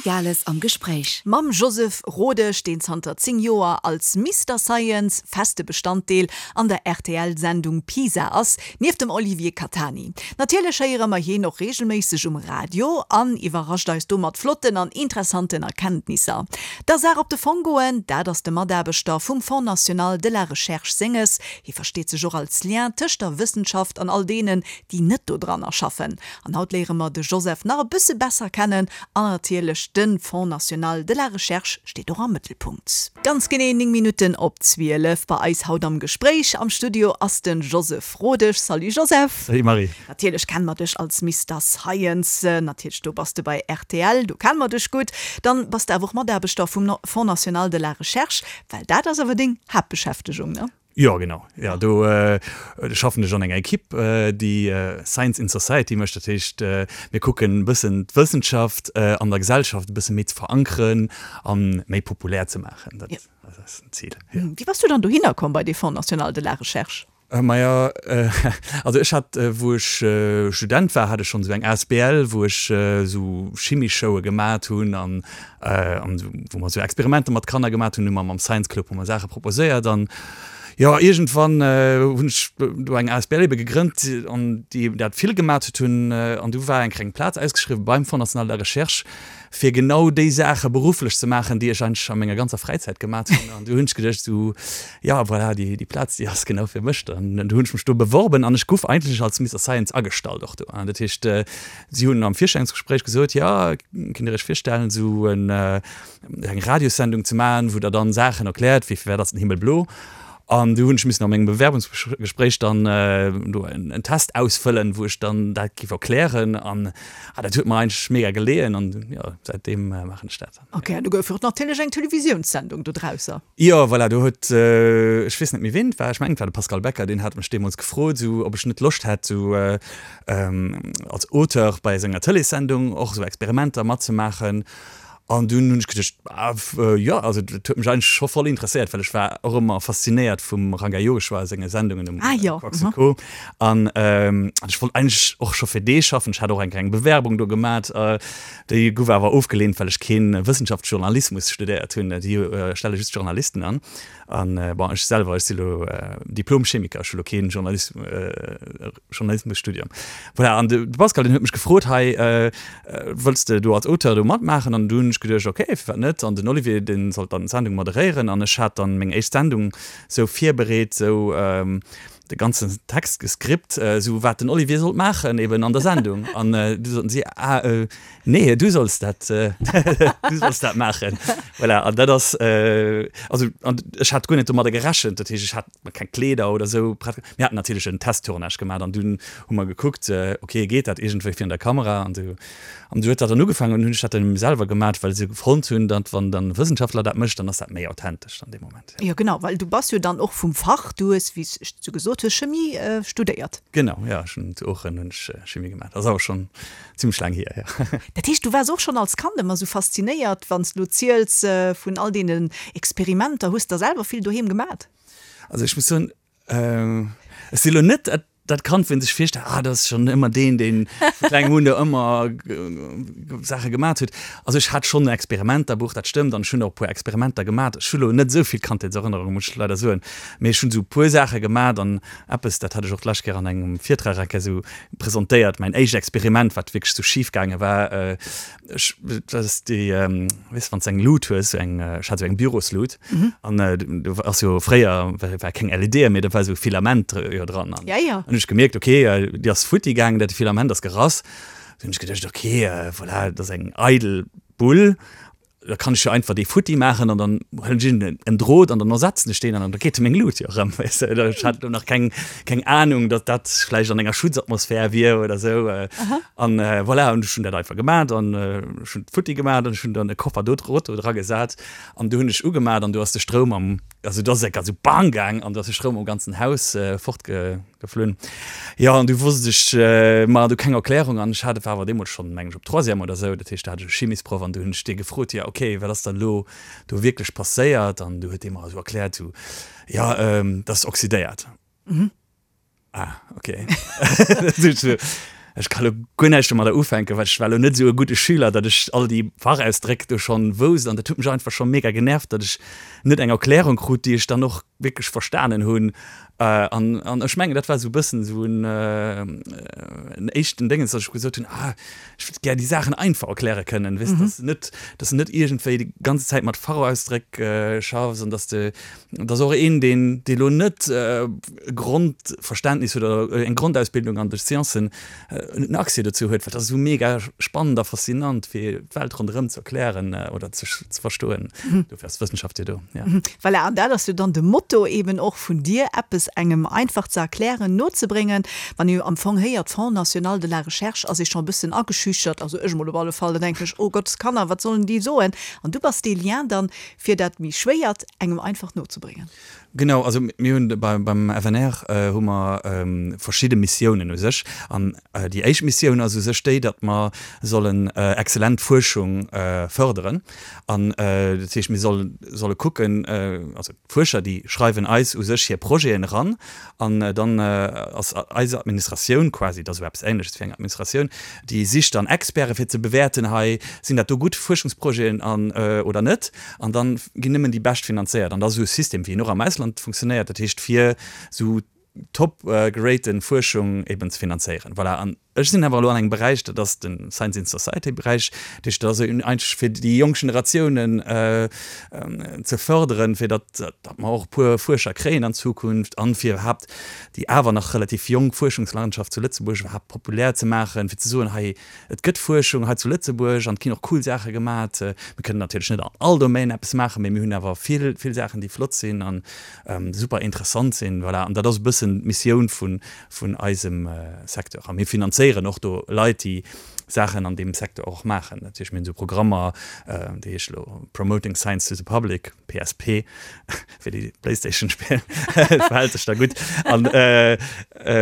Gales am Gespréich. Mam Joseph Rodesch, deen zanter 10 Joer als Mister Science feste Bestanddeel an der RTL-Sendung Pisa ass, nieft dem Olivier Catani. Natierlech héiere mer hien och reegelméisseg um Radio an iwwerrascht eis do mat flotten an interessanten Erkenntnisser. Der Saach op de Fong goen, dat ass de Mataarbechter vum Fonds National de la Recherche senges. Hie versteet sech och als Lien tëscht der Wëssenschaft an all deenen, déi net dodranner schaffen. An haut léiere mer de Joseph nach e bësse besser kennen an natierlech de Fonds National de la Recherche steet och am Mëttelpunkt. Ganz genee 9 Minutten op 12 bei eis haut am Gespréich am Studio ass de Joseph Rodesch. Salut Joseph! Salut Marie! Natierlech kenne mer dech als Mister Science, natierlech do bass de bei rtl, do kenne mer dech gutt. Dann bass de awer och Mataarbechter vum Fonds National de la Recherche, well dat ass awer deng Haaptbeschäftegung, ne? Jo, genau. Jo, do schaffen ech an enger Ekipp, déi Science in Society mécht. Dat heescht, mir kucken e bëssen d'Wëssenschaft an der Gesellschaft e bësse méi ze verankeren a méi populär ze maachen. Dat ass den Zil, jo. Wéi bass du dann dohinner komm bei dee Fonds National de la Recherche? Maja, also ech hat, wou ech Student war, hat ech schonn esou eng asbl, wou ech esou Chimieshowe gemat hunn an an wou mer esou Experimenter mat Kanner gemat hunn, hu mer mam Science Club hu mer Saache proposéiert an jo iergendwann hunn ech do eng asbl ebe gegrënnt an déi dat vill gemat huet hunn an du war eng kleng Plaz ausgeschriwwen beim Fonds National de la Recherche fir genau déi Saache berufflech ze maachen, déi ech eigentlech a menger ganzer Fräizäit gemat hunn an du hunn ech geduecht esou jo voilà déi déi Plaz déi ass genau fir mech an du hunn ech mech do beworben an ech guff eigentlech als Mister Science agestallt och do an dat heescht Si hunn am Virstellungsgespréich gesot, jo, kënnt Dir Iech virstellen, esou eng Radiossendung ze maachen, wou Der dann Saachen erkläert, wéi firwat ass den Himmel blo? An du hunn ech missen a mengem Bewerbungsgespréich dann do en Test ausfëllen, wou ech dann dat géif erklären. An dat huet mer eigentlech mega geleeën an jo, säitdeem maachen ech dat. Ok, an du gouf och natierlech eng Televisiounssendung dodrausser. Jo, voilà, do huet, ech weess net méi ween et war, ech mengen et war de Pascal Becker, deen hat mech deemools gefrot, esou ob ech net Loscht hätt, esou als Auteur bei senger Tëleessendung och esou Experimenter matzemaachen. An dunn hunn ech geduecht, ah jo, also dat huet mech eigentlech scho voll interesséiert, well ech war och ëmmer faszinéiert vum Ranga Yogeshwar senge Sendungen um Quarks und Co. An ech wollt eigentlech och scho fir dee schaffen. Ech hat och eng kleng Bewerbung do gemat, déi gouf awer ofgeleent, well ech kee Wëssenschaftsjournalismus studéiert hunn. Déi stelle just Journalisten an. An bon, ech selwer, ech si lo Diplom-Chemiker, ech hu lo kee Journalis-, Journalismusstudium. Voilà, an de Pascal, deen huet mech gefrot, hei, wëlls de do als Auteur do matmaachen? An du hunn ech geduecht, okay, firwat net? An den Olivier, dee sollt dann d'Sendung moderéieren an ech hat dann meng éischt Sendung sou virbereet, sou de ganzen Text geskript, sou wat den Olivier sollt maachen eben an der Sendung. An du soten si, ah, Nee, du solls dat, du solls dat maachen. Voilà, an dat ass, also an ech hat guer net domadder gerechent. Dat heescht, ech hat keng Kleeder oder esou prett. Mir haten natierlech en Testtournage gemaach an dunn hu mer gekuckt, okay, geet dat iergendwéi virun der Kamera an esou. An du huet dat dann ugefaangen an hunn ech dat dann selwer gemaach, well se fonnt hunn, datt wann dann e Wëssenschaftler dat mécht, dann ass dat méi authentesch an deem Moment. Jo, genau, well du bass jo dann och vum Fach, du hues, wéi s du gesot hues, Chemie studéiert. Genau, jo, ech hunn zu Oochen hunn ech Chemie gemaach. Dat ass awer schonn Zimmlech laang hier, jo. Dat heescht, du waars och schonn als Kand ëmmer sou faszinéiert, wann s du lo ziels vun all deenen Experimenter. Hues der selwer vill doheem gemat? Also ech muss soen, ech si lo net dat Kand, wou een sech virstellt, ah dat ass schonn ëmmer deen, deen vu klengem un do ëmmer Saache gemat huet. Also ech hat schonn e Experimenterbuch, dat stëmmt, an ech hunn och e puer Experimenter gemat. Ech hu lo net esou vill Kandheetserënnerungen, muss ech leider soen, mee ech hunn esou e puer Saache gemat an eppes, dat hat ech och d'lescht Kéier an engem Virtrag eng Kéier esou presentéiert, mäin éischt Experiment, wat wierklech sou schif gaange war, ech, dat ass déi, weess wann s de eng Lut hues, sou eng, ech hat sou eng Büroslut an do ass jo fréier war keng LEDe méi, da war sou Filament jo dran an hunn ech gemierkt, ok, déi ass futti gaangen, dat Filament ass gerass. Du hunn ech geduecht, ok, voilà, dat ass eng eidel Bull Da kann ech jo einfach dee futti maachen an dann huelen ech iergend en Drot an dann ersetzen ech deen an da geet meng Lut jo erëm, weess de. Ech hat do nach keng, keng Anung, datt dat vläicht an enger Schutzatmosphär wier oder esou. An voilà, an ech hunn dat einfach gemat an ech hunn futti gemat an ech hunn dann e Koffer do Drot do dra gesat an du hunn ech ugemat an du ass de Stroum am, also do ass et esou bang gaang an du ass de Stroum am ganzen Haus fortge. Geflunn. Jo, an du wosst ech, ma du keng Erklärung an ech hat, war awer deemools schonn, mengen ech, op Troisième oder esou, dat heescht, da hat ech e Chimisproff an du hunn ech dee gefrot, jo, okay, wat ass dann elo do wierklech passéiert? An du huet dee mer esou erkläert, esou, jo, dat ass oxydéiert. Ah, okay. Ech ka lo guer näischt domadder ufänken, well ech war lo net esou e gudde Schüler, datt ech all déi Fachausdréck do schonn wousst an dat huet mech einfach scho mega genervt, datt ech net eng Erklärung krut, déi ech dann och wierklech verstanen hunn. An an ech mengen, dat war esou e bëssen esou en en éischten Déngens, datt ech gesot hunn, ah ech wëllt gär déi Saachen einfach erkläre kënnen, weess, datt s de net, datt s de net iergendwéi déi ganze Zäit mat Fachausdréck schaffs an datt s de, Et ass och een, deen, dee lo net e Grondverständnis huet oder eng Grondausbildung an de Sciencen, en Accès dozou huet, well dat ass esou mega spannend a faszinant, fir d'Welt ronderëm ze erklären oder ze verstoen. Dofir ass d'Wëssenschaft jo do, ja. Voilà, an dat ass jo dann de Motto eben och vun dir, eppes engem einfach ze erklären, nozebréngen. Wann ee jo am Fong héiert Fonds national de la recherche, ass ee scho e bëssen ageschüchtert, also ech emol op alle Fall, da denken ech, oh Gott, Kanner, wat sollen déi soen? An du bass dee Lien dann, fir dat méi Schwéiert engem einfach nozebréngen. Genau, also mir hunn beim FNR hu mer verschidde Missiounen u sech. An déi éischt Missioun ass u sech déi, datt mer sollen exzellent Fuerschung fërderen. An dat heescht, mir solle kucken, also d'Fuerscher, déi schreiwen eis u sech hir Projeten eran An dann ass eis Administratioun quasi, dat ass esou eppes Ähnleches wéi eng Administratioun, déi sicht dann Experte fir ze bewäerten, hei sinn dat do gutt Fuerschungsprojeten an oder net. An dann ginn nëmmen déi bescht finanzéiert. An dat ass esou e System, wéi en och am Ausland funktionéiert, dat heescht fir esou top geraten Fuerschung eben ze finanzéieren. Voilà. An Ech sinn awer elo an engem Beräich, dat ass de Science in Society Beräich, dat heescht, dat ass eigentlech fir déi jonk Generatiounen ze fërderen, fir datt datt mer och e puer Fuerscher kréien an Zukunft an fir iwwerhaapt déi awer nach relativ jonk Fuerschungslandschaft zu Lëtzebuerg iwwerhaapt populär ze maachen, fir ze soen, hei et gëtt Fuerschung hei zu Lëtzebuerg an et ginn och cool Saache gemat. Mir kënnen natierlech net an all Domaine eppes maachen, mee mir hunn awer vill, vill Saachen, déi flott sinn an super interessant sinn. Voilà, an dat ass e bëssen d'Missioun vun vun eisem Secteur. A mir finanzéieren och do Leit, déi Saachen an deem Secteur och maachen. Dat heescht, mir hunn esou Programmer, déi heesche elo Promoting Science to the Public, PSP, fir déi Playstation spillen, verhält sech da gutt. An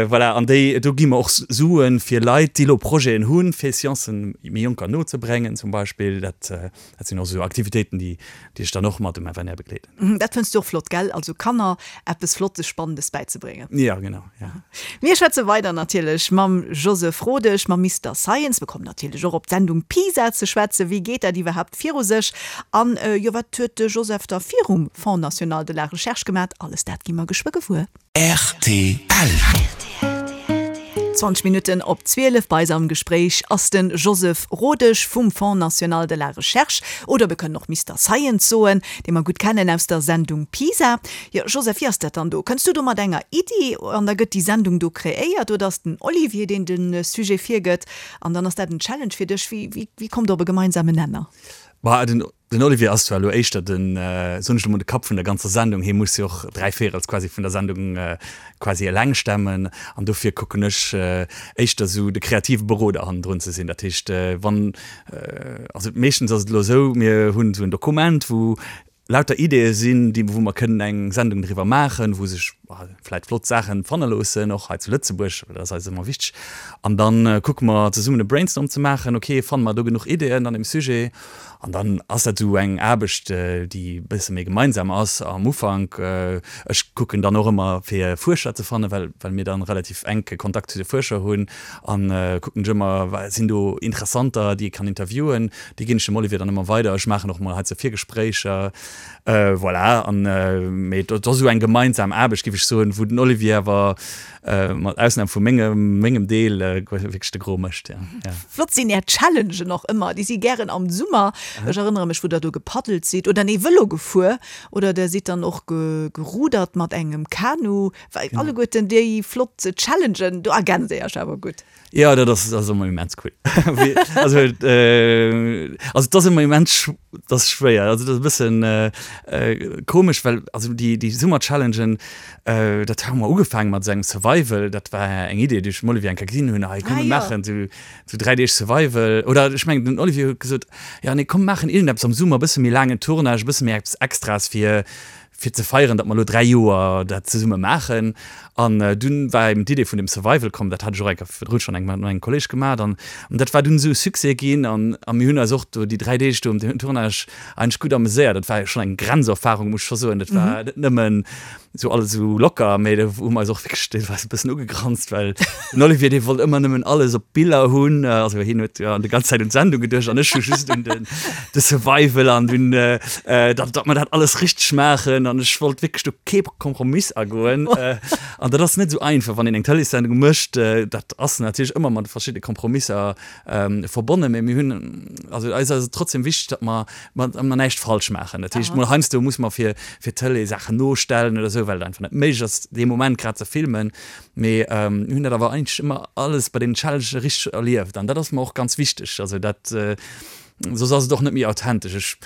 voilà, an déi, do gi mer och Suen fir Leit, déi elo Projeten hunn, fir Sciencen méi Jonker nozebréngen zum Beispill. Dat Dat sinn och esou Aktivitéiten, déi déi ech dann och mat dem FNR begleeden. Dat fënns du och flott, gell? Also Kanner eppes Flottes, Spannendes bäizebréngen. Jo, genau, ja. Mir schwätze weider natierlech mam Joseph Rodesch, mam Mister Science. Mir kommen natierlech och op d'Sendung PISA ze schwätzen. Wéi geet dat iwwerhaapt viru sech? An, jo, wat huet de Joseph da virum Fonds national de la recherche gemat? Alles dat gi mer geschwë gewuer. Rtl. 20 Minutten op 12, bei eis am Gespréich ass de Joseph Rodesch vum Fonds national de la recherche, oder mir kënnen och Mister Science soen, dee mer gutt kennen aus der Sendung PISA. Jo, Joseph, wéi ass dat dann do? Kënns du do mat enger Iddi an da gëtt déi Sendung do kreéiert oder ass den Olivier, deen de Sujet virgëtt an dann ass dat en Challenge fir dech? Wéi, wéi, wéi kommt der op e gemeinsamen Nenner? Bah, den Den Olivier ass zwar elo éischter den, soen ech elo mol, de Kapp vun der ganzer Sendung, hie muss jo och dräivéierels quasi vun der Sendung quasi eleng stemmen an dofir kucken ech éischter esou de kreative Beroder hannendrun ze sinn. Dat heescht, wann, also meeschtens ass et elo esou, mir hunn esou en Dokument, wou lauter Ideeë sinn, déi, wou mer kënnen eng Sendung driwwer maachen, wou sech vläit flott Saachen fanne loossen, och hei zu Lëtzebuerg, well dat ass eis ëmmer wichteg. An da kucke mer zesummen e Brainstorm ze maachen, ok, fanne mer do genuch Ideeën an dem Sujet? An dann ass dat esou eng Aarbecht, déi e bësse méi gemeinsam ass am Ufank. Ech kucken dann och ëmmer fir Fuerscher ze fannen, well well mir dann relativ enke Kontakt zu de Fuerscher hunn an kucken ech ëmmer, wa sinn do Interessanter, déi ee kann interviewen. Déi ginn ech dem Olivier dann ëmmer weider. Ech maachen och mol heizou Virgespréicher. Voilà, an mee et ass esou eng gemeinsam Aarbecht, géif ech soen, wou den Olivier awer mat Ausnam vu mengem, mengem Deel wierklech de Gros mécht, ja. Ja. Flott sinn är Challengen och ëmmer, déi si gären am Summer. Ech erënnere mech, wou der do gepaddelt sidd, oder nee, Vëlo gefuer, oder der sidd dann och gerudert mat engem Kanu. Alleguerten déi flott Challengen, do ergänzt dir iech awer gutt. Jo, dat ass, dat ass ëmmer immens cool. Also, also et ass ëmmer immens, dat ass schwéier, also dat ass e bëssen komesch, well also déi, déi Summer-Challengen, dat hu mer ugefaange mat esou engem Survival, dat war eng Idee, déi ech dem Olivier eng Kéier ginn hunn, hei komm mir maachen esou, esou 3 Deeg Survival. Oder ech mengen den Olivier huet gesot, jo nee komm maachen iergendeppes am Summer, e bësse méi laangen Tournage, e bësse méi eppes Extraes fir. fir ze feieren, datt mer elo 3 Joer dat zesumme maachen. An dunn war eben d'Idee vun dem Survival komm, dat hat ech och eng Kéier virdrun schonn eng mat engem Kolleg gemaach an dat war dunn esou e Succès ginn an a mir hunn eis och do déi 3 Deeg do um Tournage eigentlech gutt ameséiert. Dat war jo schonn eng Grenzerfahrung, muss ech scho soen. Dat war net nëmmen esou alles esou locker, mee do hu mer eis och wierklech deelweis e bëssen ugegranzt, well den Olivier, dee wollt ëmmer nëmmen alles op Biller hunn. Also hien huet jo déi ganz Zäit un d'Sendung geduecht an ech hu just un den de Survival an un datt datt mer dat alles richteg maachen an ech wollt wierklech do kee Kompromiss agoen. An dat ass net esou einfach, wann een eng Tëleessendung mécht. Dat ass natierlech ëmmer mat verschidde Kompromisser verbonnen, mee mir hunn, also eis ass et trotzdem wichteg, datt mer datt mer näischt falsch maachen. Dat heescht, mol heiansdo muss mer fir fir d'Tëlee Saachen nostellen oder esou, well et einfach net méiglech ass, dee Moment grad ze filmen. Mee mir hunn dat awer eigentlech ëmmer alles bei deenen Challengen richteg erlieft an dat ass mer och ganz wichteg. Also dat, soss ass et och net méi authentesch. Ech,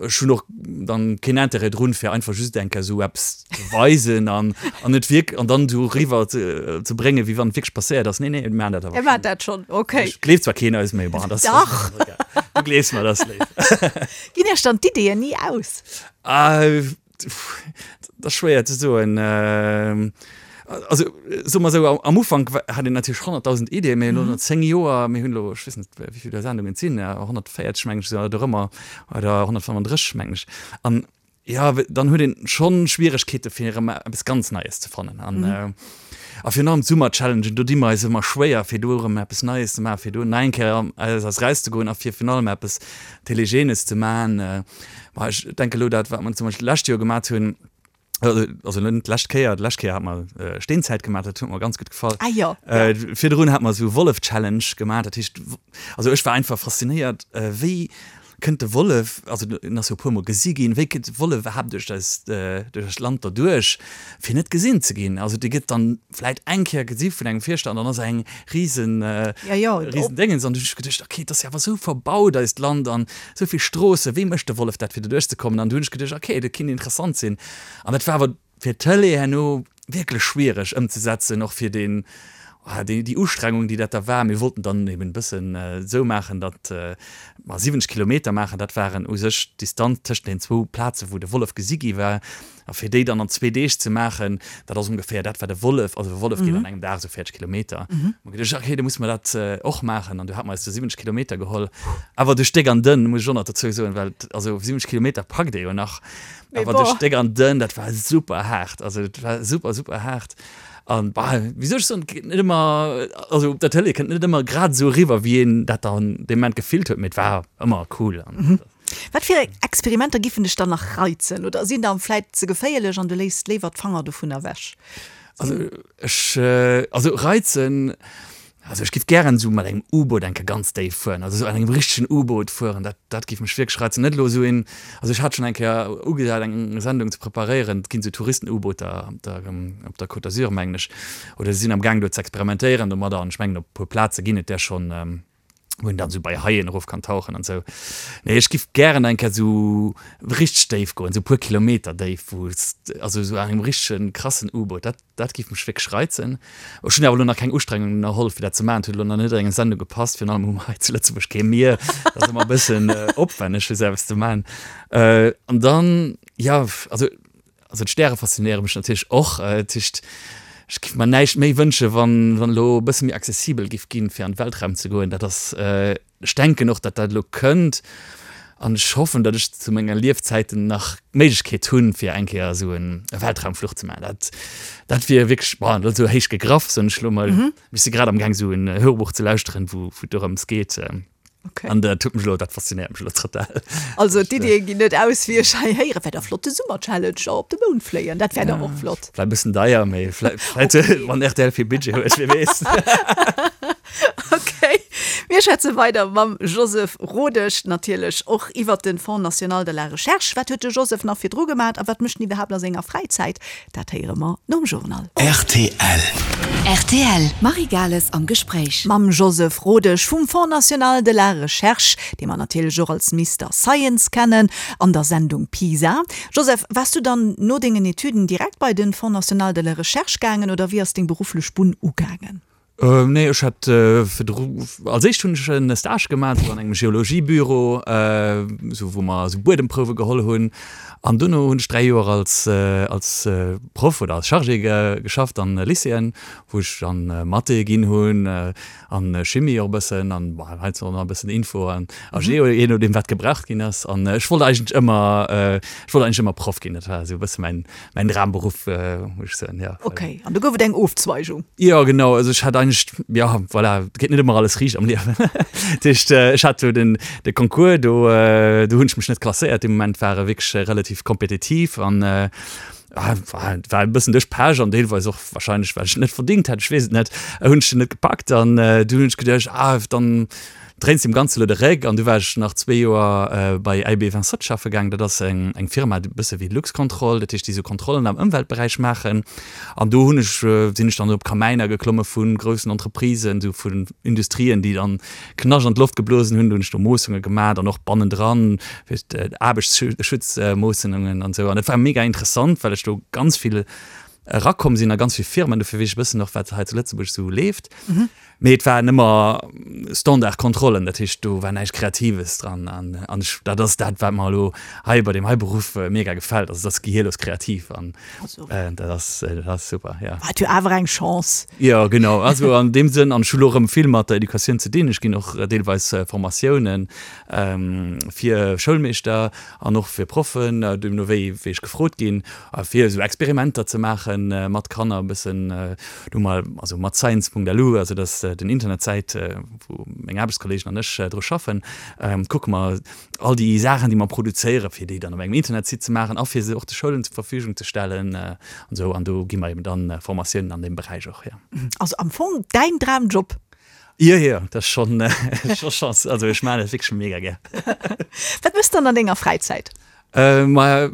ech hunn och dann keen Intérêt drun, fir einfach just eng Kéier esou eppes ze weisen an an et wierk an dann esou eriwwer ze ze bréngen, wéi wann et wierklech passéiert ass. Nee, nee, mir maachen dat awer Dir maacht dat schonn, okay. Ech gleeft zwar keen eis, mee bon, dat ass. Dach! Du gleefs mer, dat ass léif. Ginn Iech dann d'Ideeën ni aus? Dat ass schwéier ze soen. Also soe mer esou, am Ufank hat een natierlech 100.000 Ideeën, mee elo no 10 Joer, mir hunn elo, ech weess net wéi vill Sendungen et sinn, 140 mengen ech oder dorëmmer, oder 135 mengen ech. An jo, dann huet een schonn Schwieregkeete fir erëm eppes ganz Neies ze fannen. An a virun allem d'Summer-Challengen, do di mer eis ëmmer schwéier fir do erëm eppes Neies ze maachen, fir do nach eng Kéier eis erauszegoen a fir virun allem eppes Telegenes ze maachen. Ma ech denke elo dat, wat mer zum Beispill d'lescht Joer gemat hunn, also net d'lescht Kéier, d'lescht Kéier hat mer Steenzäit gemat, dat huet mer ganz gutt gefall. Ah jo, ja. Virdrun hat mer esou Wollef-Challenge gemat, dat heescht, also ech war einfach faszinéiert, wéi kënnt de Wollef, also en ass jo e puermol gesi ginn, wéi kënnt de Wollef iwwerhaapt duerch eist, duerch eist Land derduerch, fir net gesinn ze ginn? Also dee gëtt dann vläit eng Kéier gesi vun engem Fierschter an dann ass eng risen, Ja, jo, risen Déngens. An du hunn ech geduecht, okay, et ass jo awer esou verbaut eist Land an esou vill Stroossen, wéi mécht de Wollef dat fir doduerch ze kommen? An du hunn ech geduecht, okay, dat kinnt interessant sinn. An dat war awer fir d'Tëlee herno wierklech schwiereg ëmzesetzen, och fir deen, déi, déi Ustrengung, déi dat da war. Mir wollten dann eben e bëssen esou maachen, datt mer 70 Kilometer maachen, dat waren u sech d'Distanz tëschent den zwou Plazen, wou de Wollef gesi gi war. A fir déi dann an zwee Deeg ze maachen, dat ass ongeféier dat, wat e Wollef, also e Wollef geet an engem Dag esou 40 Kilometer. Hu mer geduecht, okay, da musse mer dat och maachen. An du hate mer eis du 70 Kilometer geholl, awer duerch déck an dënn, muss ech och nach dozou soen, well also 70 Kilometer packt ee jo nach, awer duerch déck an dënn, dat war super haart, also dat war super, super haart. An bah, wéi soll ech soen, et geet net ëmmer, also op der Tëlee kënnt net ëmmer grad esou eriwwer, wéi een dat dann dee Moment gefillt huet, mee et war ëmmer cool. Wat fir Experimenter giffen dech dann nach reizen oder sinn der vläit ze geféierlech an du léiss léiwer d'Fanger dovun ewech? Also ech, also reizen, also ech giff gären esou mat engem U-Boot eng Kéier ganz déif fueren, also esou an engem richtegen U-Boot fueren, dat, dat giff mech wierklech reizen. Net elo esou een, also ech hat schonn eng Kéier ugesat eng Sendung ze preparéieren, et ginn esou Touristen-U-Booter op der, op der Côte d'Azur mengen ech, oder se sinn am Gaang do ze experimentéieren domadder an ech mengen op e puer Plaze ginn et där schonn. wou een dann esou bei Haien erof kann tauchen an esou. Nee, ech giff gären eng Kéier esou richteg déif goen, esou puer Kilometer déif, wou s, also esou an engem richtegen krassen U-Boot, dat, dat giff mech wierklech reizen. Ech hunn awer elo nach keng Ustrengung ënnerholl fir dat ze maachen, et huet elo nach net an eng Sendung gepasst, virun allem hu mer hei zu Lëtzebuerg kee Mier, dat ass ëmmer e bëssen opwänneg fir esou eppes ze maachen. An dann, jo, also Also d'Stäre faszinéiere mech natierlech och. Dat heescht, ech giff mer näischt méi wënsche wann wann elo e bësse méi accessibel giff ginn, fir an d'Weltraum ze goen. Dat ass, ech denken och, datt dat elo kënnt an ech hoffen, datt ech zu menger Liefzäiten nach d'Méiglechkeet hunn, fir eng Kéier esou en Weltraumfluch ze maachen. Dat dat wier wierklech, bon, dat ass elo héich gegraff, soen ech elo mol. Ech si grad amgaang esou en Hörbuch ze lauschteren, wou wou et dorëms geet. Okay. An dat huet mech elo, dat faszinéiert mech elo total. Also d'Iddie ginn net aus, wéi ech hei héieren. Wär da flott de Summer-Challenge op de Mound fléien, dat wär da och flott. Vläicht e bëssen deier, mee vläicht, okay. wann rtl vill Budget huet, wie weess. Okay, mir schwätze weider mam Joseph Rodesch, natierlech och iwwert de Fonds national de la recherche. Wat huet de Joseph nach virdru gemat a wat mécht en iwwerhaapt a senger Fräizäit? Dat héiere mer nom Journal. Rtl. Rtl, Marie Gales am Gespréich. Mam Joseph Rodesch vum Fonds National de la Recherche, dee mer natierlech och als Mister Science kennen, an der Sendung PISA. Joseph, waars du dann no dengen Etüden direkt bei den Fonds National de la Recherche gaangen oder wéi ass deng berufflech Bunn ugaangen? Nee, ech hat virdru, als éischt hunn ech en Stage gemaach esou an engem Geologiebüro, esou wou mer esou Buedemprouwe geholl hunn. An dono hunn ech 3 Joer als als Proff oder als Chargé geschafft an Lycéeën, wou ech dann Mathé ginn hunn an Chimie och e bëssen an bon heiansdo och nach e bëssen Info an a Geo, jee nodeem wat gebraucht ginn ass. An ech wollt eigentlech ëmmer, ech wollt eigentlech ëmmer Proff ginn, dat war esou e bësse mäin Mäin Dramberuff, muss ech soen, jo. Ok, an du gouf et eng Ofzweigung? Jo, genau. Also ech hat eigentlech, jo, voilà, et geet net ëmmer alles riicht am Liewen. Dat heescht, ech hat do den, de Concours, do, do hunn ech mech net klasséiert. Dee Moment war e wierklech relativ kompetitiv an war, war e bëssen duerch Pech an deelweis och wahrscheinlech, well ech et net verdingt hätt, ech weess et net, hunn ech den net gepackt. An du hunn ech geduecht, ah, dann dréins deem Ganze lo de Réck. An du war ech nach zwee Joer bei LB 27 schaffe gaang. Dat ass eng eng Firma, e bësse wéi Luxcontrol, dat heescht, déi sou Kontrollen am Ëmweltberäich maachen. An do hunn ech, sinn ech dann op Kamäiner geklomme vu groussen Entreprisen, sou vun Industrien, déi dann Knascht an d'Loft geblosen hunn. Do hunn ech do Moossunge gemaat an och bannendran, fir Aarbechtsschutzmoossunungen an esou. An dat war mega interessant, well ech do ganz vill erakomm sinn a ganz vill Firmen. Dofir weess ech e bëssen och, wat hei zu Lëtzebuerg sou leeft. Mee et waren ëmmer Standardkontrollen, dat heescht do war näischt Kreatives dran. An an ech, dat ass dat, wat mer elo hei bei deem hei Beruff mega gefält, also et ass gehierlos kreativ an dat ass, dat ass super, jo. War et jo awer eng Chance. Jo, genau, also an deem Sënn, an ech hu lo erëm vill mat der Educatioun ze dinn, ech ginn och deelweis Formatiounen fir Schoulmeeschter an och fir Proffen, deemno wéi wéi ech gefrot ginn, fir esou Experimenter ze maache mat Kanner e bëssen. Do mol, also mat science.lu, also dat ass den Internetsäit, wou meng Aarbechtskollegen an ech dru schaffen, kucke mer all déi Saachen, déi mer produzéieren, fir déi dann op engem Internetsite ze maachen a fir se och de Schoulen zur Verfügung ze stellen an esou. An do gi mer eben dann Formatiounen an deem Beräich och, jo. Also am Fong däin Dramjob? Jo, jo, dat ass schonn, scho Chance. Also ech maachen dat wierklech mega gär. Wat méchs de dann an denger Fräizäit? Maja,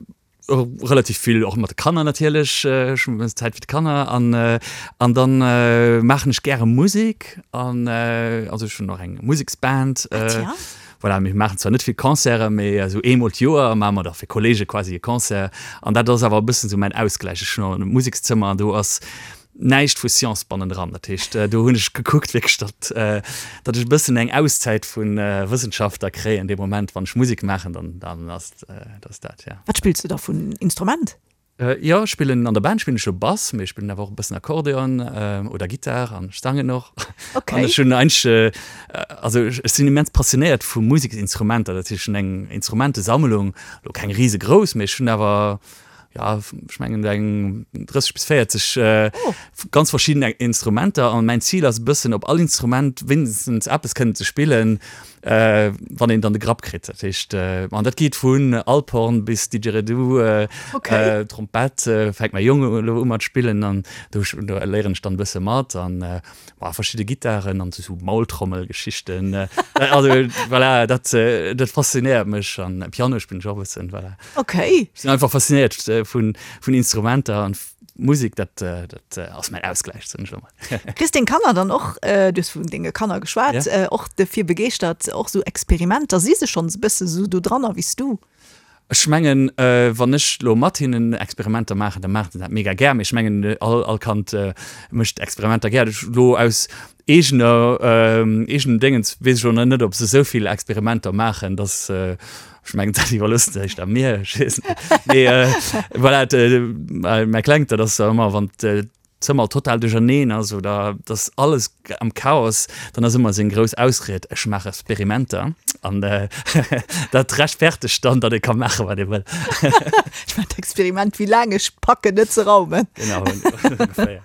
Relativ vill och mat de Kanner natierlech, ech hunn e bëssen Zäit fir d'Kanner an an dann maachen ech gäre Musek an also ech hunn och eng Museksband. Voilà, mir maachen zwar net vill Concerte, mee esou eemol d'Joer maache mer da fir Kolleege quasi e Concert an dat ass awer e bëssen esou mäin Ausgläich. Ech hunn och e Musekszëmmer an do ass näischt vu Science bannendran. Dat heescht, do hunn ech gekuckt wierklech, datt, datt ech e bëssen eng Auszäit vu Wëssenschaft da kréien dee Moment, wann ech Musek maachen, dann, dann ass dat dat, ja. Wat spills du da vun Instrument? Jo, ech spillen an der Band spillen ech jo Bass, mee ech spillen awer och e bëssen Akkordeon oder Gittar an ech sangen och. Okay. An ech hunn eigentlech, also ech sinn immens passionéiert vu Museksinstrumenter, dat heescht, ech hunn eng Instrumentesammlung, elo keng risegrouss, mee ech hunn awer, ja ech mengen eng 30 bis 40 oh. ganz verschieden Instrumenter an mein Ziel ass e bëssen op all Instrument wéinstens eppes kënnen ze spillen, äh, wann een dann de Grapp kritt. Dat heescht äh, an dat geet vun Alphorn bis Didgeridoo, äh, okay. äh, Trompett äh, fänkt mäi Jong elo u mat spillen an do, do léieren ech dann e bësse mat an äh, Boah, verschidde Gittaren an sou Maultrommelgeschichten. Also voilà, dat, dat faszinéiert mech an Piano spillen ech och e bëssen, voilà. Okay. Ech sinn einfach faszinéiert vun, vun Instrumenter an Musek, dat, dat ass mäin Ausgläich, soen ech elo mol. Kriss deng Kanner dann och, du hues vun denge Kanner geschwat, och dofir begeeschtert, och sou Experimenter? Si se schonns e bësse sou do dranner wéi s du? Ech mengen, wann ech elo mat hinnen Experimenter maachen, da maachen se dat mega gär. Mee ech mengen, all, all Kand mécht Experimenter gär. Ech elo aus eegener, eegenem Déngens weess ech elo nach net, ob se esou vill Experimenter maachen, dass, ech mengen, dat iwwerloosse se éischter mir, ech weess net. Mee voilà, mäi Klengt, dat ass ëmmer, wann Zëmmer total duercherneen ass oder dass alles am Chaos, dann ass ëmmer seng grouss Ausried, ech maache Experimenter an dat rechtfertegt dann, datt ee ka maache wat ee wëll. Ech maachen d'Experiment, wéi laang ech packen net ze raumen. Genau, ongeféier.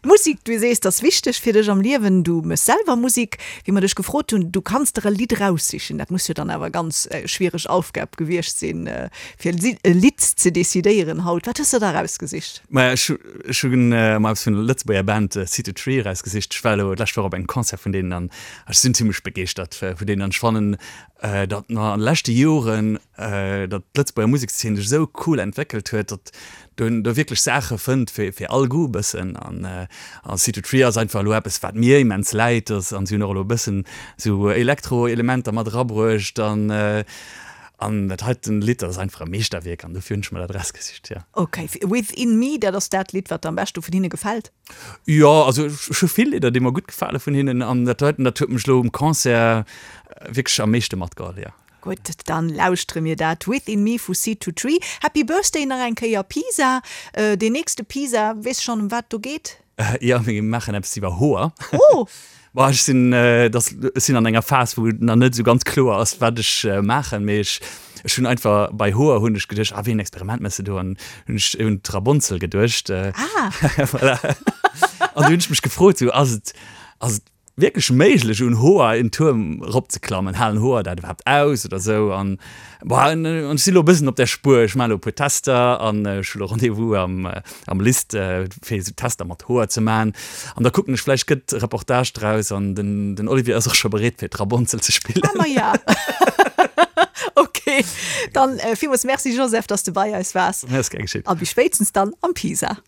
Musik, du sees, ass wichteg fir dech am Liewen. Du méchs selwer Musik. Wéi mer dech gefrot hunn, du kanns der e Lidd eraussichen, dat muss jo dann awer ganz schwiereg Aufgab gewiescht sinn, fir e Lidd ze decidéieren haut. Wat hues de der erausgesicht? Maja, ech ech hunn mer eppes vun der Lëtzebuerger Band City Tree erausgesicht. Ech war elo d'lescht Woch op engem Concert vun deenen an ech sinn zimmlech begeeschtert vun deenen an ech fannen, datt mer an de leschte Joren, datt d'Lëtzebuerger Musekszeen sech esou cool entwéckelt huet, datt do do wierklech Saache fënnt fir fir all Goût e bëssen an an City Tree ass einfach elo eppes wat mir immens läit an si hunn och elo e bëssen esou Elektro-Elementer mat erabruecht an. An dat heiten Lidd, dat ass einfach e Meeschterwierk an dofir hunn ech mer dat erausgesicht, jo. Ok, Within Me, dat ass dat Lidd, wat der am beschte vun hinne gefält? Jo, also ech hu vill Lidder, déi mer gutt gefale vun hinnen an dat heiten, dat huet mech elo um Concert wierklech am meeschte matgeholl, jo. Gutt, dann lauschtere mir dat Within Me vu Seed to Tree. Happy Birthday nach eng Kéier Pisa. Deen nächste Pisa, weess schonn ëm wat do geet? Jo, mir maachen eppes iwwer Hoer. Oh! Bon, ech sinn, dass, ech sinn an enger Phas, wou nach net esou ganz kloer ass, wat ech maachen, mee ech, ech hunn einfach, bei Hoer hunn ech geduecht, ah, wéi en Experiment méchs de do? An hunn ech un d'Rabonzel geduecht. Ah! Voilà. An du hunn ech mech gefrot, sou, ass et, ass et wierklech méiglech un Hoer en Tuerm eropzeklammen? Halen Hoer dat iwwerhaapt aus oder sou? An bon, an ech si lo e bëssen op där Spuer. Ech maachen elo e puer Tester an ech hu lo Rendez-vous am am List fir esou Tester mat Hoer ze maachen. An da kucken ech, vläicht gëtt e Reportage draus an den den Olivier ass och scho bereet fir d'Rabonzel ze spillen. Ah ma ja. Ok, dann villmools Merci Joseph, dass de bei eis waars. Ass gär geschitt. A bis spéitstens dann am Pisa.